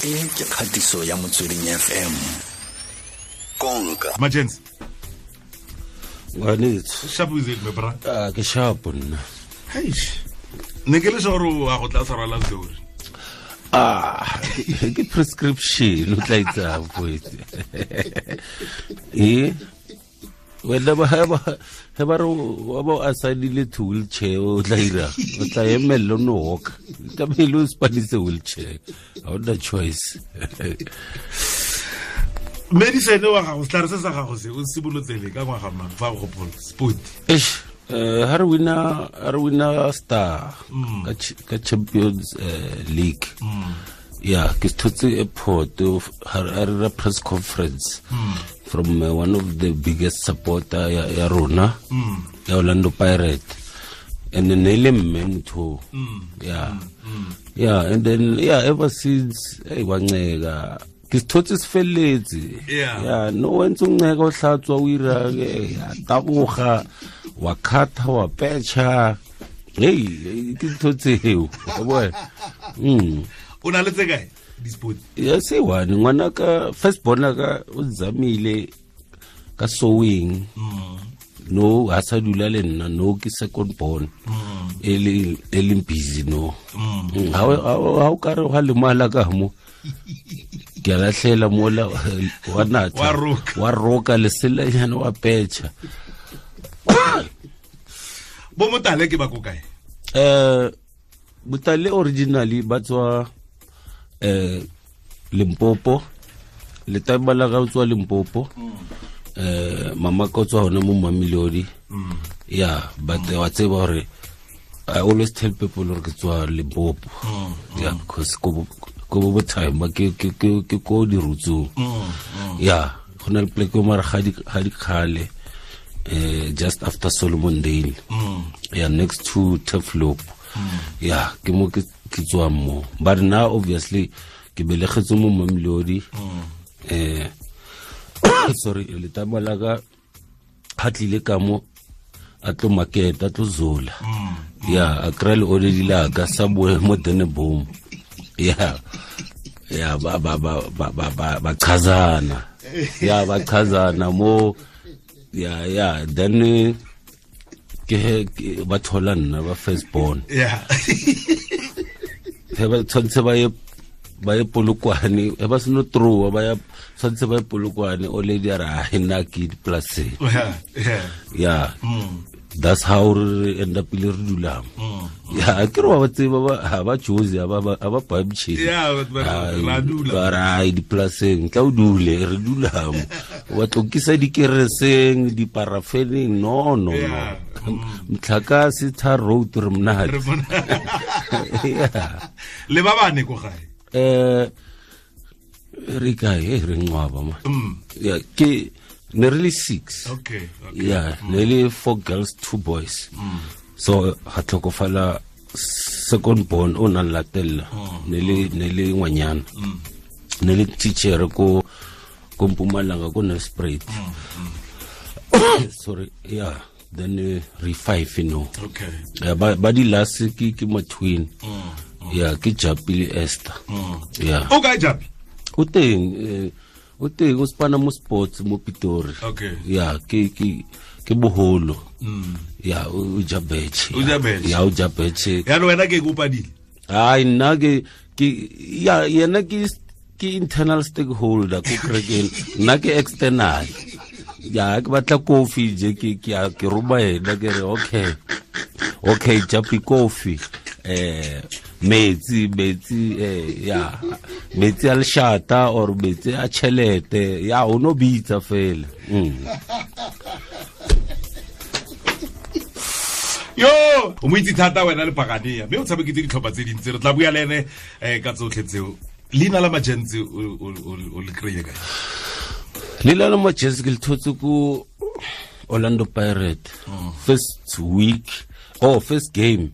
E ke kgatiso ya Motsweding FM. Konka. Majens. Ngwanetso. Sharp is it, my brother? Ah, ke sharp nna. Eish. Ne ke le sure gore wa go tla tshwarela story. Ah, ke prescription o tla itsang poetse. Eh? Wena ba ba he ba re wa ba a saenile to wheelchair o tla ira o tla emelela o no walk tlamehile o spanise wheelchair ga o na choice. Medicine wa gago, setlhare se sa gago se o simolotsele ka ngwaga mang fa o gopola sport? Eish, ha re wina, ha re wina star ka Champions League. Yeah, ke thotse airport ha re ra press conference from one of the biggest supporter ya rona ya Orlando Pirate, and then ne le mme motho. Yeah. Yeah, and then yeah, ever since hey wa nceka ke sethotse se felletse. Yeah, no wa ntse o nceka o hlatswa o ira ya taboga wa khatha wa petšha. Hey, ke ntho tseo wa bona. O na le tse kae di-sport? Ya se one ngwana ka first born ka o zamile ka sewing. No ha sa dula le nna, no ke second born. E le busy no. Ha o ka re ha lemala ka mo. Ke a lahlela mola wa natha. Wa roka. Wa roka leselanyana wa petšha. Bo Motale ke ba ko kae? Motale originally ba tswa Limpopo. Letaba la ga tswa Limpopo. Mama ka tswa hona mo Mamelodi. Yeah, but wa tseba hore I always tell people hore ke tswa Limpopo. Yeah, because ko bo time ke ke ke ke ko di rutsong. Yeah, go na le pleke mara ga di khale. Just after Solomon Dale. Yeah, next to Turfloop. Yeah, ke mo ke tswa mo. But now obviously ke belegetse mo Mamelodi. Sorry, letaba la ka ha tlile ka mo a tlo market, a tlo zola. Yeah, a kry le already la ka sa boe mo Denneboom. Yeah. Yeah, ba ba ba ba ba ba ba chazana. Yeah, ba chazana mo. Yeah, yeah, then ke ba thola nna ba first born. Yeah. He ba tshwantse ba ye Polokwane, he ba seno trowa ba ya tshwantse ba ye Polokwane, o lady a re ha nna ke dipolaseng. Yeah, yeah. Yeah. That's how re end up le re dulang. Yeah, ke re ba tseba ba ha ba choose ba ba ba bamche. Yeah, but ra dula. Ba ra dipolaseng, tla o dule, re dulang. Wa tlokisa dikereseng, diparafeneng, no no no. Mtlhakase tar road re monate. Yeah. Le ba bane ko gae? Re kae, re ngwaba ma. Yeah, ke ne re le 6. Okay, okay. Yeah, ne le 4 girls, 2 boys. So ha tlhokofala second born o nang latella. Ne le ngwanyana. Ne le teacher ko Mpumalanga ko Nelspruit. Sorry, yeah. Then re 5 no. Okay. Yeah, ba di last ke mo twin. Yeah, ke Japi le Esther. Yeah. O kae Japi? O teng, o teng o spana mo sports mo Pitori. Okay. Yeah, ke boholo. Yeah, o ja betche. O ja betche. Yeah, o ja betche. Ya wena ke kopadile. Ai nna ke ya yena ke internal stakeholder ko kerekeng, nna ke external. Ya ke batla kofi je ke ke roma yena ke re okay. Okay, Japi kofi. Metsi ya metsi a leshata or metsi a tšhelete ya o no bitsa fela. Yo o mo itse thata wena le Paganea mme o tshameketse ditlhopha tse dintsi, re tla bua le ene ka tsotlhe tseo. Leina la Majentsi o le kry-ile kae? Leina la Majentsi ke le thotse ko Orlando Pirate. First week, oh first game.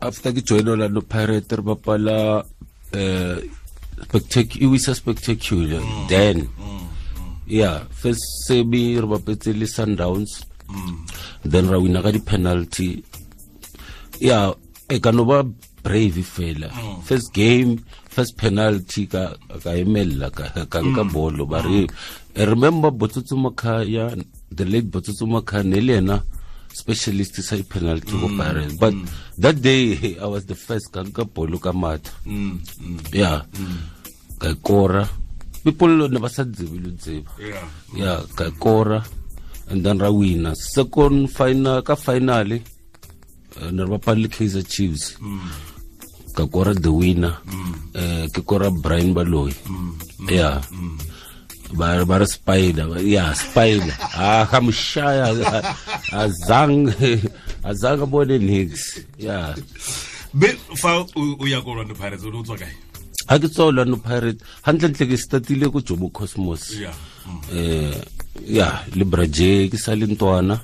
After ke join Orlando Pirate re bapala spectacular, spectacular. Then yeah, first semi re bapetse le Sundowns. Then ra wina ka di penalty. Yeah, e ka no ba brave fela. First game, first penalty ka emella ka nka bolo ba re remember Botsotso Makhaya, the late Botsotso Makhaya ne le ena specialist sa penalty go Pirates, but that day I was the first ka nka bolo ka matha. Yeah, ka kora people ne ba sa tsebe lo tseba. Yeah, ka kora and then ra wina second final ka finale ne re bapala le Kaizer Chiefs. Ka kora the winner, ke kora Brian Baloyi. Yeah, ba re spider, yeah, spider. Ah, ka moshaya azang bone nix. Yeah. Be fa o ya ko Orlando Pirates o tswa kae? Ha ke tswa Orlando Pirates, hantlentle ke startile ko Jomo Cosmos. Yeah. Yeah, le Braje ke sa le ntwana.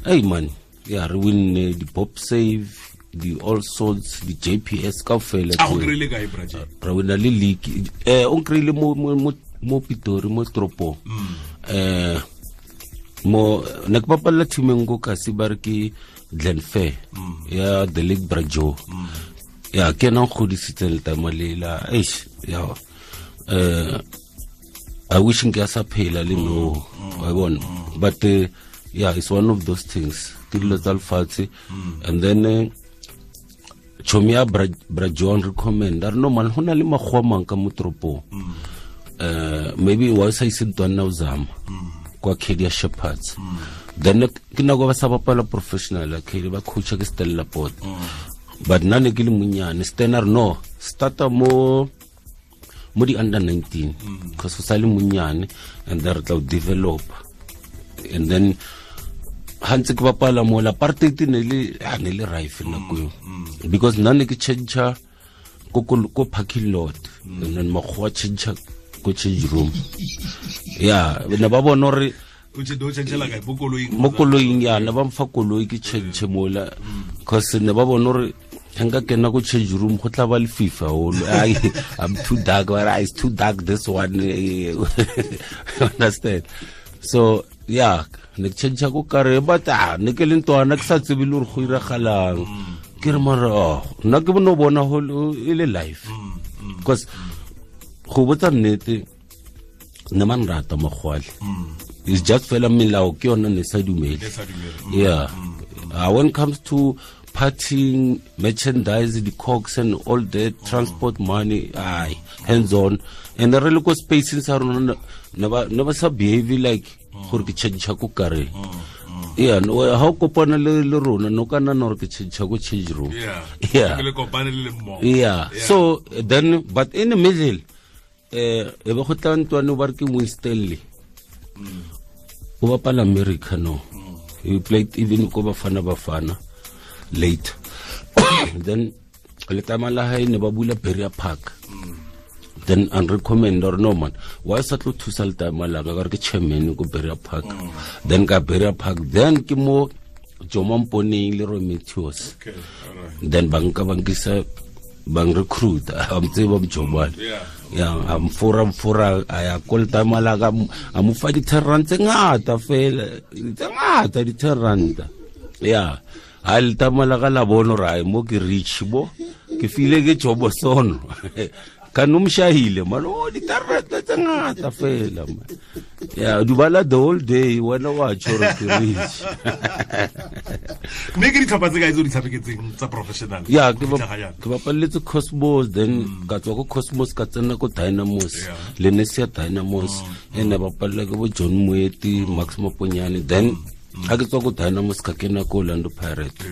Hey man, yeah, re winne di Pop Save, di All Sorts, di JPS kaofela. A go kry-ile kae Braje? Re wina le league. O nkry-ile mo Pitori, mo toropong. Mo ne ke bapalla team e nngwe ko kasi ba re ke Glenfair ya the late Brajo. Ya ke ena nkgodisitseng letama lela. Eish, ya. I wish nka sa phela le no. Wa bona. But yeah, it's one of those things. Ke dilo tsa lefatshe. And then chomi ya Brajon recommend a re no man ho na le makgowa mang ka mo toropong. Maybe wa sa ise ntwana o zama kwa Kedia Shepherds. Then ke nako ba sa bapala professional Kedia ba coacha ke Stella Port. But nna ne ke le monyane Stenner no starta mo di under 19 because o sa le monyane and then re tla o develop. And then ha ntse ke bapala mo la apartheid ne le rife nako eo, because nna ne ke change ko parking lot and then makgowa change ko change room. Yeah, ne ba bona hore o change la kae mo koloing? Mo koloing, ya, ne ba mfa koloi ke change mola because ne ba bona hore nka kena ko change room go tla ba le FIFA holo. I'm too dark, but it's too dark this one. Understand? So yeah, ne ke change ko kare but ne ke le ntwana ke sa tsebe le hore go iragalang. Ke re mara nna ke no bona ho e le life because go botsa nnete ne man rata mogwale. It's just fela melao ke yona ne sa dumele. Yeah. When it comes to partying, merchandise, the cokes and all that, transport money, hands on. And the really go spacing sa rona never sa behave like gore ke change ko kare. Yeah, no ha o kopana le rona no kana no ke change ko change room. Yeah. Yeah. Ke le kopane le mmogo. Yeah. So then but in the middle e be go tla ntwane ba re ke Winstanley. O bapala America no. He played even ko Bafana late. Then letama la hae ne ba bula Berea Park. Then and recommend or no man why sa tlo thusa letama la ka re ke chairman ko Berea Park. Then ka Berea Park then ke mo Jomo Mponeng le Roy Matthews. Okay, all right. Then banka bankisa bang recruit am tseba mjomane. Yeah, am fora a ya ko letama la ka a mo fa di 10 rand tse ngata fela tse ngata di 10 rand. Yeah. Ha letama la ka la bona hore mo ke rich bo ke file ke jobo sono ka no mshahile man o di tarata tse ngata fela man. Yeah, dubala the whole day wena wa tjho re ke rich. Mme ke ditlhopha tse kae tse o di tshameketseng tsa professional? Yeah, ke bapaletse Cosmos, then ka tswa ko Cosmos ka tsena ko Dynamos, Lenesia Dynamos, ene bapalla ke bo John Moeti, Max Maponyane, then ha ke tswa ko Dynamos ka kena ko Orlando Pirates.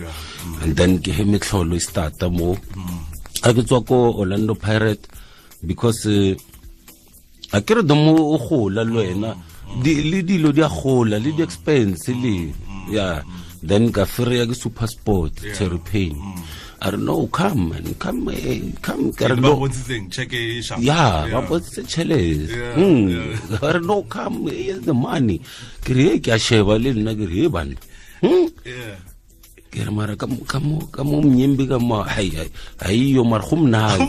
And then ke he metlholo e starta mo. Ha ke tswa ko Orlando Pirates because a ke re domo o gola le wena le dilo di a gola le di expense le yeah. Then ka fereya ke Super Sport Terry Payne. I don't know, come man, come ka re no check e sharp. Yeah, ba bontshitse tjhelete. I don't know, come here's the money. Ke re ke a sheba le nna ke re bana. Yeah. Ke re mara ka mo mnyembe ka mo hai hai yo mara go mnate.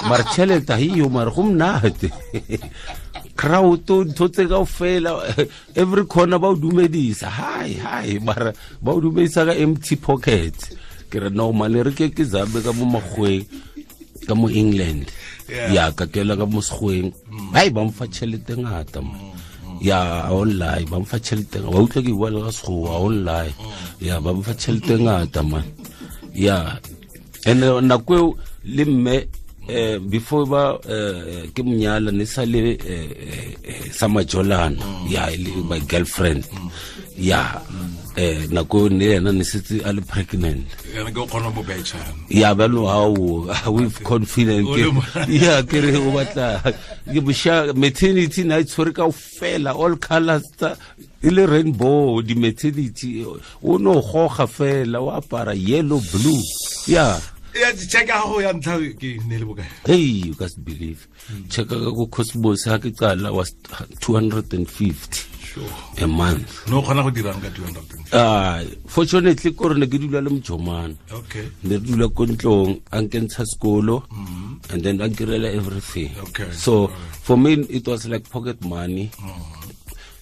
Mara tjhelete hai yo mara go mnate. Crowd ntho tse kaofela every corner ba o dumedisa hi hi mara ba o dumedisa ka empty pocket. Ke re no mane re ke zabe ka mo makgweng ka mo England. Ya ka kela ka mo sekgweng. Hai ba mfa tšhelete ngata man. Ya online ba mfa tšhelete wa utlwa ke bua le ka sekgowa online. Ya ba mfa tšhelete ngata man. Ya and nako eo le mme before ba ke monyala ne sa le sa majolana ya my girlfriend. Ya nako ne yena ne setse a le pregnant. Yena ke o kgona mo betšha. Ya ba no how with confident. Ya ke re o batla ke bosha maternity na tshwere ka fela all colors tsa e le rainbow di maternity o no goga fela o apara yellow blue. Ya ya check a go ya ntlha ke ne le bokae? Hey, you can't believe. Check ka go Cosmos ha ke qala was 250. Sure. A month. No kgona go dirang ka 250. Fortunately ko re ne ke dula le mojomana. Okay. Ne re dula ko ntlong a nkentsha sekolo and then a nkirela everything. Okay. So for me it was like pocket money.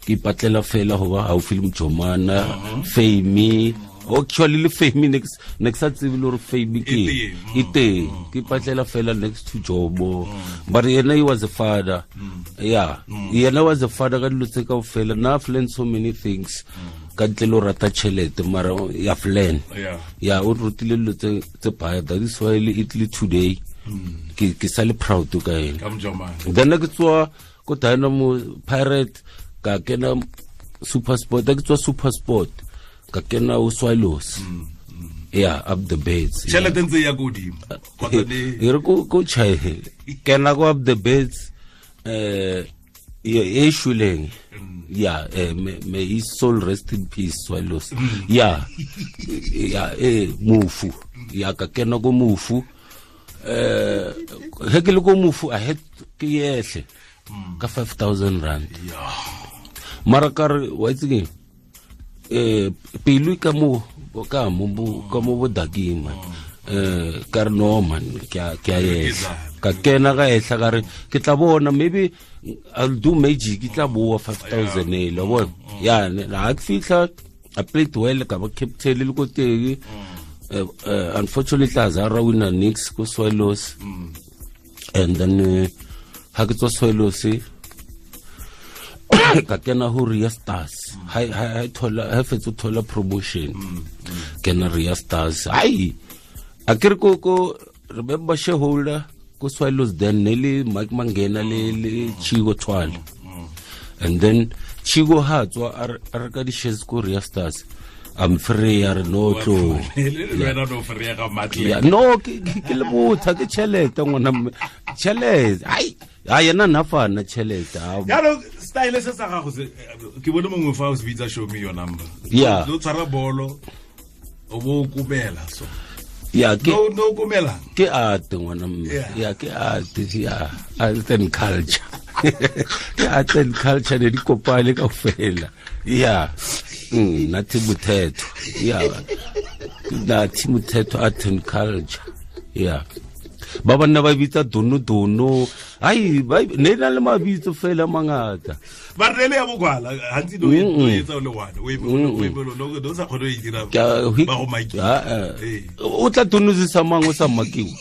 Ke ipatlela fela ho ba haufi le mojomana, Fame. Actually le Fame next sa tsebe le hore Fame ke e teng. Ke ipatlela fela next to Jobo. But yena he was a father. Yeah. Yena was a father ka dilo tse kaofela. Now I've learned so many things. Ka ntle le ho rata tjhelete mara I've learned. Yeah, o rutile dilo tse baya. That is why le Italy today. Ke sa le proud ka ena. Ka mojomana. Then ke tswa ko Dynamo Pirate ka kena Super Sport. Ke tswa Super Sport ka kena o Swallows. Yeah, up the beds. Tjhelete ntse ya godimo. Kgotsa le e re ko tjhae. Kena go up the beds e shuleng. Yeah, may his soul rest in peace, Swallows. Yeah. Yeah, mufu. Yeah, ka kena go mufu. He ke le go mufu a het ke yehle ka 5000 rand. Yeah. Mara ka re wa itse keng? Pelo ka mo bodakeng man. Ka re no man ke a yehla. Ka kena ka ehla ka re ke tla bona maybe I'll do magic ke tla boa 5000 e lo bona. Ya ha ke fihla I played well ka ba captain le ko teng. Unfortunately Azara winner Knicks ko Swallows. And then ha ke tswa Swallows ka kena ho Ria Stars. Ha thola ha fetsa thola promotion. Kena Ria Stars. Ai a ke re ko remember shareholder ko Swallows then ne le Mike Mangena le Chigo Twala. And then Chigo ha tswa a re ka di shares ko Ria Stars. I'm free or no tlo. Le no free ga matle. No ke le botha ke tšhelete ngwana tšhelete. Ai ha yena na fana tšhelete. Ya no style se sa gago se ke bone mongwe fa o se bitsa show me your number. Yeah. No tshwara bolo o bo kumela so. Ya ke no kumela. Ke art ngwana mme. Ya ke art ya art and culture. Ke art and culture ne di kopane kaofela. Yeah. Nathi Mothetho. Yeah. Nathi Mothetho art and culture. Yeah. Ba banna ba bitsa dono dono. Ai ba ne na le mabitso fela mangata. Ba re le ya bokwala hantsi do etsa le one. O e no do sa khone e dira ba go maki. O tla donozisa mang o sa makiwa.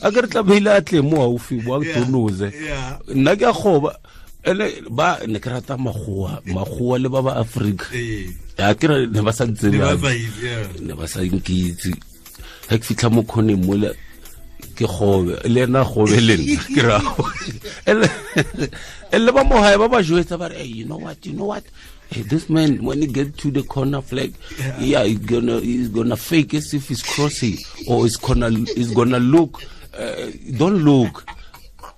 A ke re tla beile a tle mo haufi bo a donoze. Nna ke a goba ene ba ne ke rata magoa le ba ba Africa. Ya ke re ne ba sa ntsebe. Ne ba sa nkitse. Ha ke fitlha mo khoneng mola ke gobe le ena gobe le nna ke ra. Ele ba mo hae ba ba jwetsa ba re hey, you know what hey, this man when he get to the corner flag, yeah, he's gonna fake as if he's crossing or he's gonna look don't look.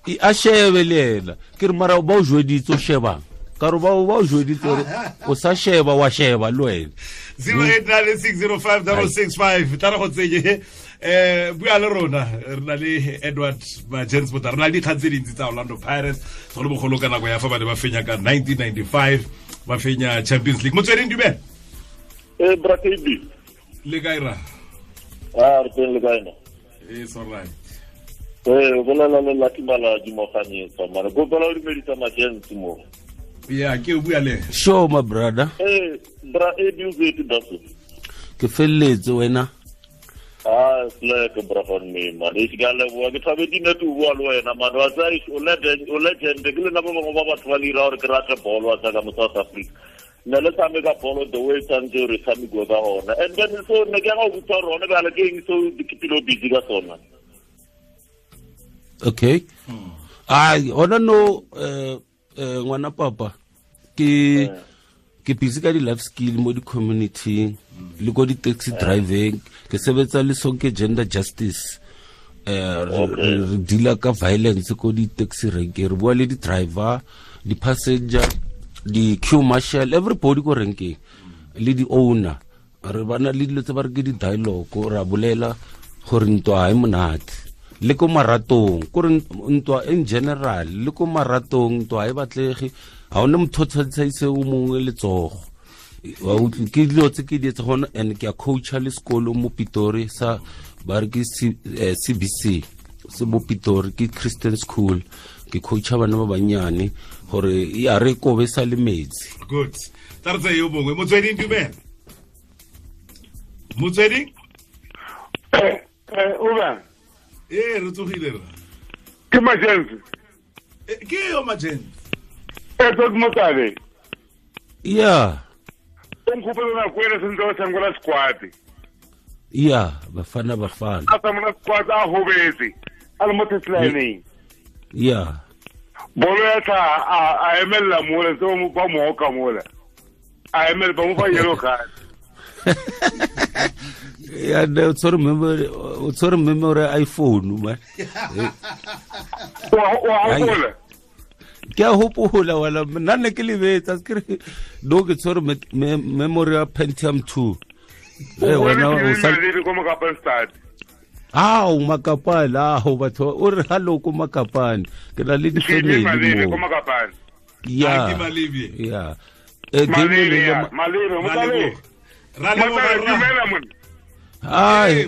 A shebe le ena ke re mara ba o jweditse o shebang ka re ba o jweditse hore o sa sheba wa sheba le wena. 0896056665 tla re go tsenye bua le rona re na le Edward Majens Botha re na le dikgang tse dintsi tsa Orlando Pirates segolobogolo ka nako ya fa ba ne ba fenya ka 1995 ba fenya Champions League. Motsweding dumela. Bra KB le kae ra? Re teng le kae na? It's all right. Bolela le Lucky Maladi Moganyetsa mara go bolela le dumedisa Majens mo. Yeah, ke o bua le. Sure my brother. Bra e di o daso. Ke felletse wena. Ah, slack brafan me man. E ka leboa ke thabetse ne tu bua le wena man. Wa tsa o legend, o legend ke le nna ba bangwe ba batho ba le ira gore ke rate bolo wa tsa ka mo South Africa. Ne le tshameka bolo the way tshwanetse re tshamekiwe ka gona. And then so ne ke ya go botsa gore gone bjale ke eng seo ke pilo busy ka sona. Okay. Ai, hona no ngwana papa ke ke busy ka di-life skill mo di-community le ko di-taxi driving ke sebetsa le Sonke Gender Justice re deala ka violence ko di-taxi rank re bua le di-driver di-passenger di-queue marshal everybody ko renkeng le di-owner re bana le dilo tse ba re ke di-dialogue ra bolela gore ntwa ha e monate le ko maratong kore ntwa in general le ko maratong ntwa ha e batlege ha ona motho o tshwantshaise o mongwe letsogo wa utlwe ke dilo tse ke di etse gona and ke a coacha le sekolo mo Pitori sa ba re ke CBC se mo Pitori ke Christian school ke coacha bana ba bannyane gore ya re kobe sa le metsi. Good. Tla re tseye yo mongwe. Motsweding, dumela. Motsweding? Uba. Ee, re tsogile rra. Ke Majensi. Ke yo Majensi. Edward Motale. Yeah. O nkgopela nako ena sentse ba tshamekela squad. Yeah, Bafana Bafana. A tshameka squad a hobetse. A le mo touchline. Yeah. Bolo ya tla a emella mola tse ba mo oka mola. A emella ba mo fa yellow card. Yeah, no, sorry memory, sorry memory iPhone man. Wa hopola. Ke a hopola wala nna ne ke lebetsa ke re no ke tshwere memory ya Pentium 2. Eh wena o sa le ko Makapane. Ah, o Makapane, ah batho o re hallo ko Makapane. Ke na le di-family mo Makapane. Yeah. Ke Malebye. Yeah. Malebye, Malebye, Malebye. Ra leboga rra. Hi,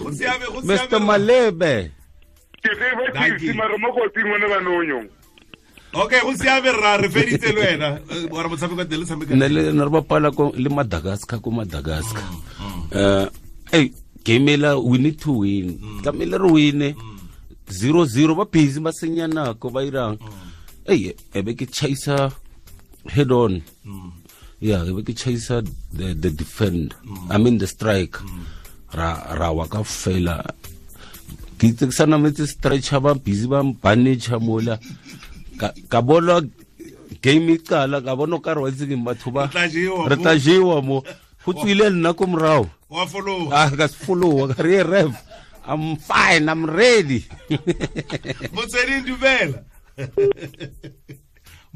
Mr. Malebe. Ke tsebe ke mare mo kotsing wena ba nonyong. Okay, go siame rra, re feditse le wena. Wa re motshameko teng le tshameka. Ne le ne re bapala ko le Madagascar ko Madagascar. Hey, game ela we need to win. Tlamehile re win. 0-0 ba busy ba senya nako ba irang. Hey, ebe ke chaisa head on. Yeah, ebe ke chaisa the defend. I mean the strike. Ra wa ka fela. Ke itse ke sa nametse stretcher ba busy ba mpanage mola. Ka bona game e qala ka bona ka re wa itse ke batho ba re tla jewa mo go tswile nna ko morao wa follow ah ka follow ka re ref I'm fine, I'm ready. Motsweding dumela.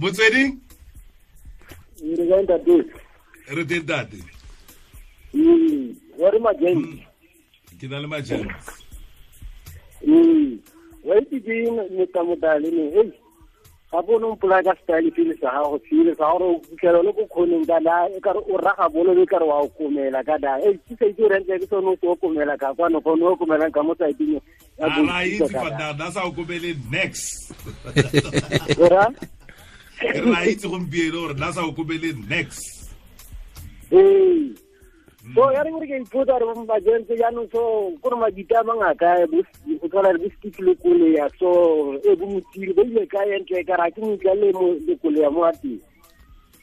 Motsweding re teng ntate. Wa re Majensi. Ke na le Majensi. Wa itse ke metamodale ne hey ga bone o mpolaya ka style pele sa gago sele sa gore o fitlhela le ko kgoneng ka la e kare o raga bolo e kare wa o komela ka da e ke sa itse gore ntle ke sone o se o komela ka kwano gone o komelang ka mo tsaitseng ya bo itse fa da sa o komele next. Ora re a itse gompieno gore na sa o komele next. Ee. So ya re gore ke ipotsa gore Majensi jaanong so kore madita a mangaka go tshwana le bo Steve Lekolea so e bo Motiri ba ile kae ntle ka ra ke motla le mo Lekolea mo a teng.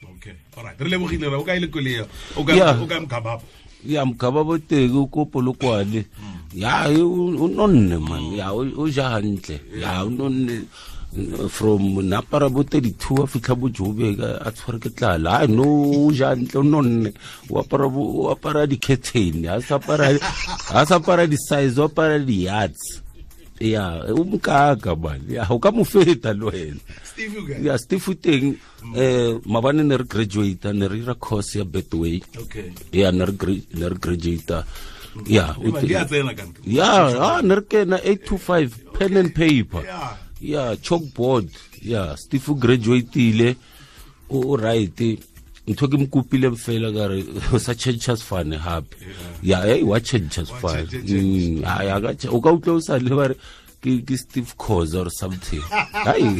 Okay, all right. Re lebogile re o kae Lekolea? O ka Mkhababo. Ya Mkhababo teng ko Polokwane. Ya o nonne man. Ya o ja hantle. Ya o nonne from napara bo 32 a fitlha bo Joburg a tshware ke tlala. I no ja ntle nonne o apara di-curtain a sa apara di-size o apara di-yards. Ya o mokaka man. Ya o ka mo feta le wena. Ya Steve teng mabane ne re graduate ne re ira course ya Betway. Okay. Ya ne re graduate. Ya o ya ne re kena 8 to 5 pen and paper. Yeah, chalkboard. Yeah, Steve graduate-ile o right. Ntho ke mokopile fela ka re o sa change fane hape. Yeah, hey, wa change fane. Ya ka o ka utlwa o sa le ba re ke Steve Khoza or something. Hai.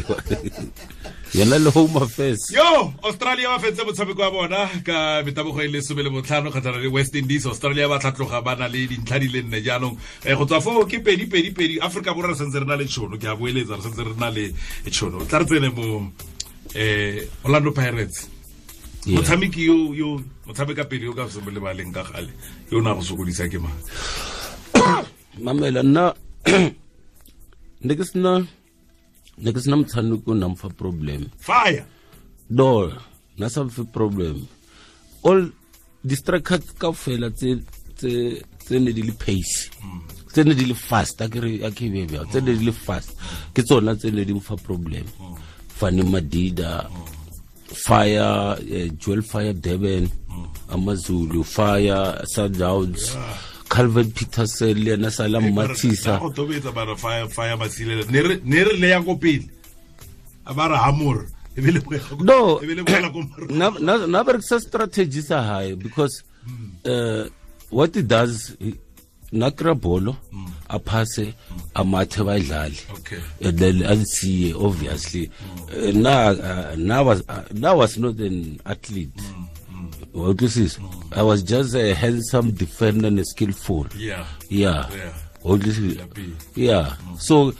Yena le Home Affairs. Yo, Australia ba fentse motshameko wa bona ka metabogo e le 15 kgatlhanong le West Indies. Australia ba tlhatloga ba na le dintlha di le nne jaanong. Go tswa foo ke 2-2-2. Afrika Borwa re santse re na le tšhono, ke a boeletsa re santse re na le tšhono. Tla re tsene mo Orlando Pirates. Motshameki yo motshameka pele yo ka se mo lebaleng ka gale yo na go sokodisa ke mang? Mamela nna ne ke sena motshameko o nang fa problem. Fire. No, na sa fe problem. All distracts kaofela tse ne di le pace. Tse ne di le fast, a ke be tse ne di le fast. Ke tsona tse ne di mo fa problem. Fani Madida, Fire, Joel Fire Durban, Amazulu, Fire, Sundowns, Calvin Peterson, le yena Salam Matisa. Go tobetsa bara Fire Masilela. Ne re le ya ko pele. A bara hamor. No, na berekisa strategy sa hae because what he does, na kry bolo, a passe, a mathe ba idlale. Okay. And then ansiye obviously. Now was not an athlete. I was just a handsome defender and skillful. Yeah. Yeah. Yeah. So,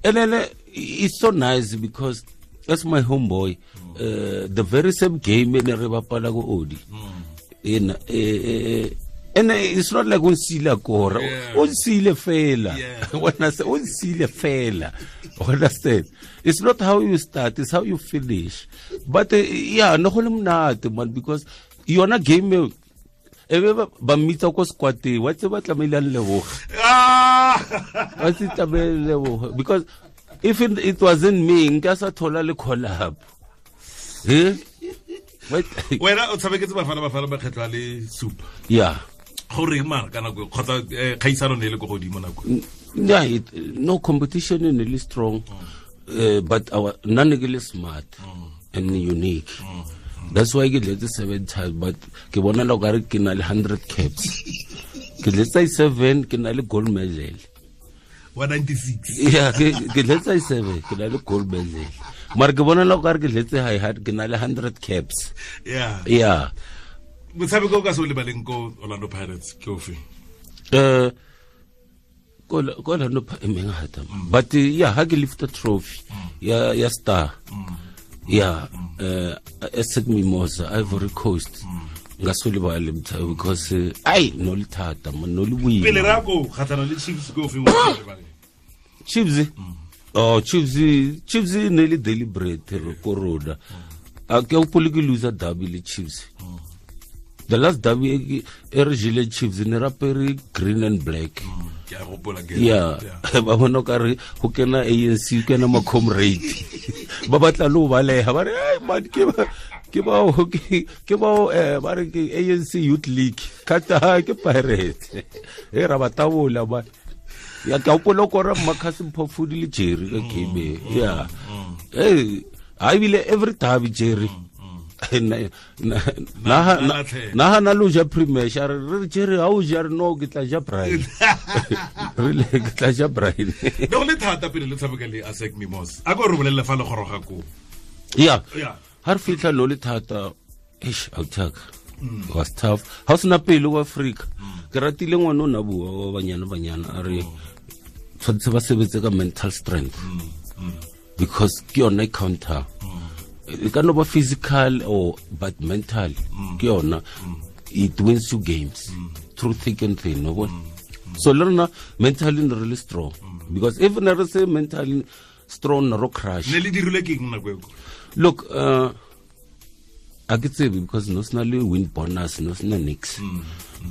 and then it's so nice because that's my homeboy. The very same game in Rebapala go Odi. In and it's not like unsile kora. Unsile fela. When I say unsile fela, understand? It's not how you start, it's how you finish. But yeah, no go le monate man, because yona game e ba mmitsa ko squad wa tse ba tlamehile a leboga. Wa tse tlamehile leboga because if it wasn't me nka sa thola le call up. Eh? Wena o tshameketse Bafana makgetlho a le supa. Yeah. Gore mara ka nako kgotsa kgaisano ne le ko godimo nako. Yeah, no competition ne le strong. But our nna ne ke le smart and unique. That's why ke dletse 7 times, but ke bona la okare ke na le 100 caps. Ke dletse 7 ke na le gold medal. 196. Yeah, ke dletse 7 ke na le gold medal. Mara ke bona la okare ke dletse high hard ke na le 100 caps. Yeah. Yeah. Motshameko o ka se o lebaleng ko Orlando Pirates ke ofe? Ko Orlando Pirates, but yeah, ha ke lift the trophy. Yeah, star. Yeah, ASEC Mimosa, Ivory Coast. Nka se o lebale because ai no le thata man, no le boima. Pele ra ko kgatlhana le Chiefs ke ofe o lebaleng? Chiefs? Oh, Chiefs ne le deliberate ko rona. A ke hopole ke loser derby le Chiefs. The last derby e re jele Chiefs ne rapere green and black. Ke a gopola ke. Yeah. Ba bona ka re go kena ANC kena ma comrade. Ba batla lo baleha ba re ai man ke bao ba re ke ANC Youth League. Kata ke Pirates. E ra batabola ba. Ya ke hopola ko re Marcus Mphofudi le Jerry ka game. Yeah. Eh, I bile every derby Jerry. Na na lo ja premier re Jerry ha o ja re no ke tla ja Brian. Re ke tla ja Brian. No le thata pele le tshameka le ASEC Mimosa. A ko re bolelle fa le goroga ko. Yeah. Yeah. Ha re fitlha no le thata eish outak. Was tough. Ha sena pele wa Africa. Ke ratile ngwana o na bua wa banyana a re tshwanetse ba sebetse ka mental strength. Because ke yona counter. It can be physical or but mental. Ke yona it wins you games through thick and thin. No? So learn mentally really strong. Because if never say mentally strong no crash. Ne le dirile ke eng nako eo? Look, I could say because no sna le win bonus, no sna nix.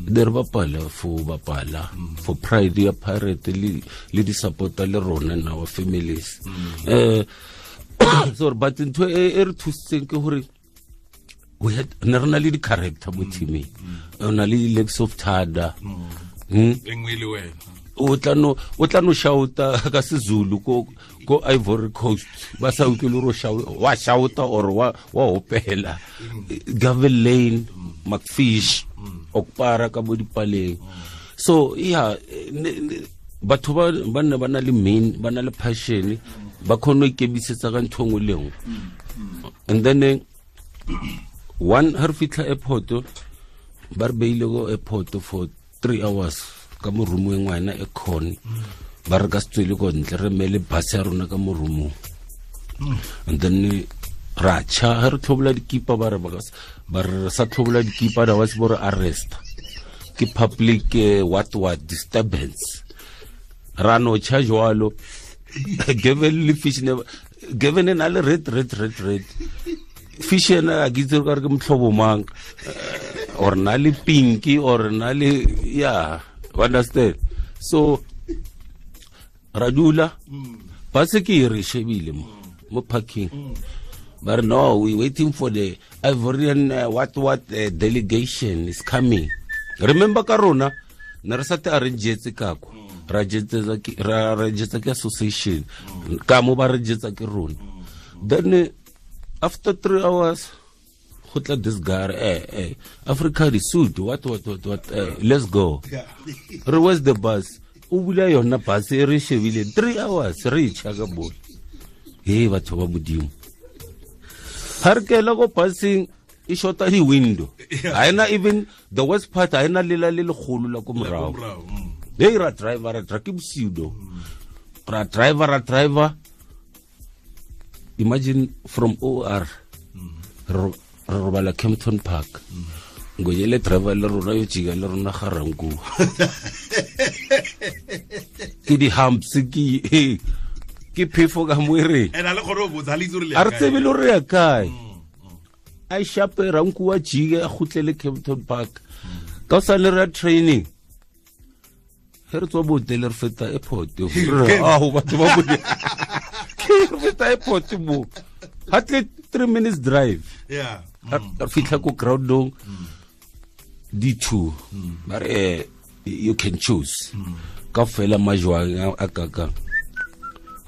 There bapala for bapala for pride ya pirate le di supporter le rona and our families. So but ntho e re thusitseng ke hore we had ne re na le di character mo teaming. O na le legs of Thada. Engwe le wena. O tla no shouta ka seZulu ko Ivory Coast ba sa utlwe le ro wa shouta or wa hopela. Gavin Lane, McFish, Okpara ka bo dipaleng. So yeah, batho ba ne ba na le main, ba na le passion, Ba kgone go ikemisetsa ka ntho nngwe le nngwe. And then one ha re fitlha airport, ba re beile ko airport for 3 hours ka mo roomong ngwana e khone. Ba re ka se tswele ko ntle, re mele bus ya rona ka mo roomong. And then ra tšha, ha re tlhobola dikipa, ba re ba re sa tlhobola dikipa, da wa se bo re arrest. Ke public what disturbance. Ra no tšha jwalo. Given le fish ne given na le red. Fish ena a ke itse gore ke motlhobo mang, or na le pinky, or na le, yeah, you understand. So ra dula ba se ke re shebile mo parking. But no, we waiting for the Ivorian what delegation is coming. Remember ka rona ne re sa te arrange ka kwa. Ra jetsa ke association ka mo ba re jetsa ke rona. Then after 3 hours go tla this guy, Africa the suit, what, let's go. Re where's the bus? O bula yona bus e re shebile 3 hours re tšha ka bole. Hey batho ba modimo. Ha re kela go busing e shota di window. Ha ena even the worst part, ha ena lela le legolo la ko morago. Hey ra driver ra ke bosiu do. Ra driver. Imagine from OR re robala Kempton Park. Ngoyele driver le rona yo jika le rona ga ranku. Ke di humps ke phefo ka moere. Ena le gore o botsa le itse re le. A re tsebe le re ya kae. A shape ranku wa jike a khutlele Kempton Park. Ka sa le ra training. He re tswa botele re feta airport. Ah batho ba bone. Ke re feta airport mo. Hardly 3 minutes drive. Yeah. Re fitlha ko groundong D2. Ba re you can choose. Ka fela majwang a kaka.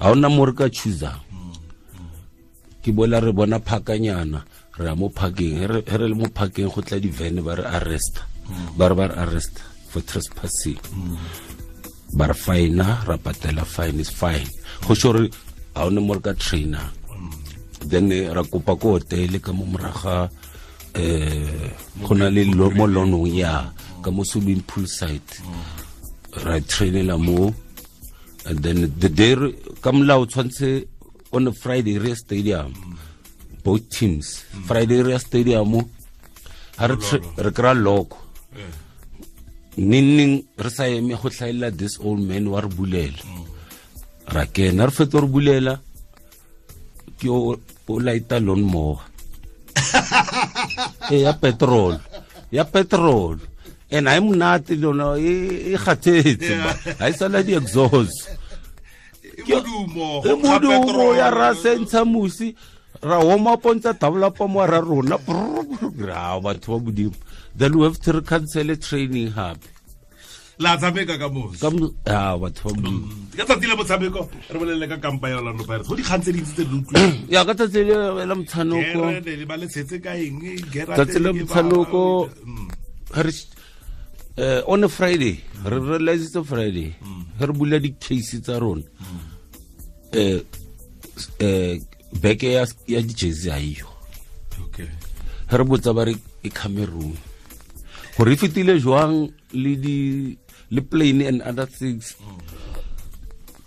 Ha ona mo re ka chooser. Ke bola re bona phakanyana, re ya mo parking, re le mo parking go tla di van ba re arrest. Ba re arrest for trespassing. Ba re fine, ra patela fine is fine. Go sure ha ona mo re ka trainer. Then ra kopa ko hotel ka mo moraga go na le mo lonong ya ka mo swimming pool site. Ra trainela mo. And then the day ka molao tshwantse on a Friday re stadium, both teams. Friday re stadium ha re kra loko. Ninning re sa eme go hlaela this old man wa re bulela. Ra kena re fetsa re bulela ke o laita lawn mower. Ya petrol. Ya petrol. And I'm not lona e kgathetse ba. Ha e sala di exhaust. Modumo ya ra sentsha musi ra warm up ntsa tabla pa mo ra rona. Ra batho ba modimo. Then we have to cancel training hape. La tshameka ka mo. Ka batho ba modimo. Ka tsatsi la motshameko re bolelle ka kampa ya Orlando Pirates. Go dikgang tse dintsi tse di utlwileng. Ya ka tsatsi la motshameko. Re ba le tshetse ka eng? Tsatsi la motshameko re on a Friday, re realize it's a Friday. Re bula di case tsa rona. Beke ya di jersey ha iyo. Okay. Re botsa ba re e Cameroon. Gore e fetile jwang le di le plane and other things.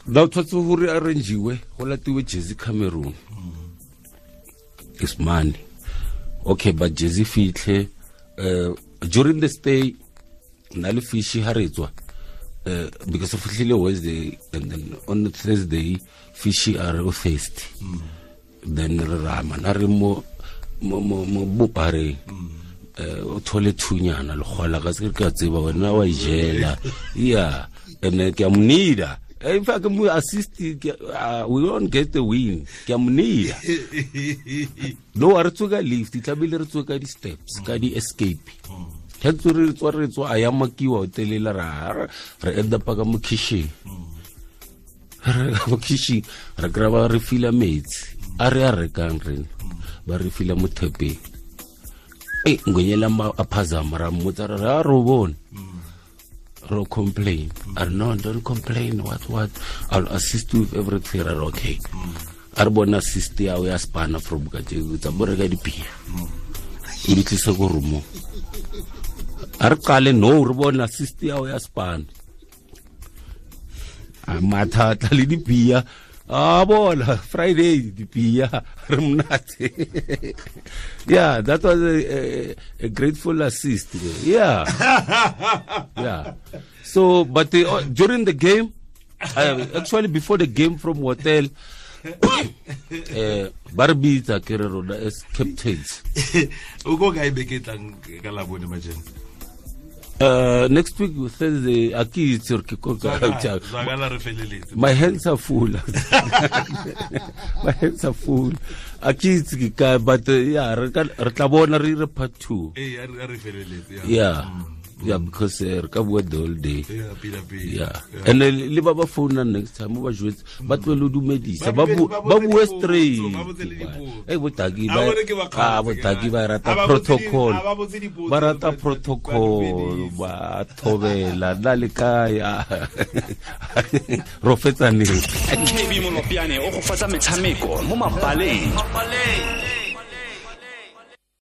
Now tshwatse gore arrangiwe go latiwe jersey Cameroon. It's money. Okay, but jersey fitlhe during the stay na le fish ha re tswa because fihlile Wednesday and then on the Thursday fish are thirsty. Then re rama na re mo bopare o thole thunyana le gola ka se ke a tseba wena wa ijela. Yeah, and ke a monida. In fact mo assist we won't get the win. Ke a monida. No re tsoka lift tlamehile re tsoka di steps ka di escape. Re tswa a ya makiwa hotelela ra re end up ka mo kitchen. Re mo kitchen re graba re fila metsi a re a rekang rena ba re fila mo thepeng. Ngwenyela a phazama ra mmotsa re a ro bona. Ro complain. A re no, don't complain, what I'll assist you with everything. Re okay. A re bona assist ya o ya spana from kajeko tsa bo reka dipia. O di tlise ko roomong. A re qale no re bona assist ya o ya spana. A matha tla le dipia. A bona Friday dipia re monate. Yeah, that was a grateful assist. Yeah. Yeah. So, but during the game, actually before the game from hotel, ba re bitsa ke re rona as captains. O ko kae beke tlang ka Labone majeno? Next week Thursday, a ke itse gore ke ko kae. Zwakala re feleletse. My hands are full. My hands are full. A ke itse ke kae, but yeah, re tla bona re dire part 2. Ee, a re feleletse. Yeah. Yeah, because re ka bua the whole day. Yeah, pila pila. Yeah. And le ba ba founa next time ba jwetse ba tlohele ho dumedisa ba bue straight. Eh botaki ba botaki ba rata protocol. Ba rata protocol ba thobela na le kae. Ro fetsa neng. KB Molopiane o go fatsa metshameko mo mabaleng.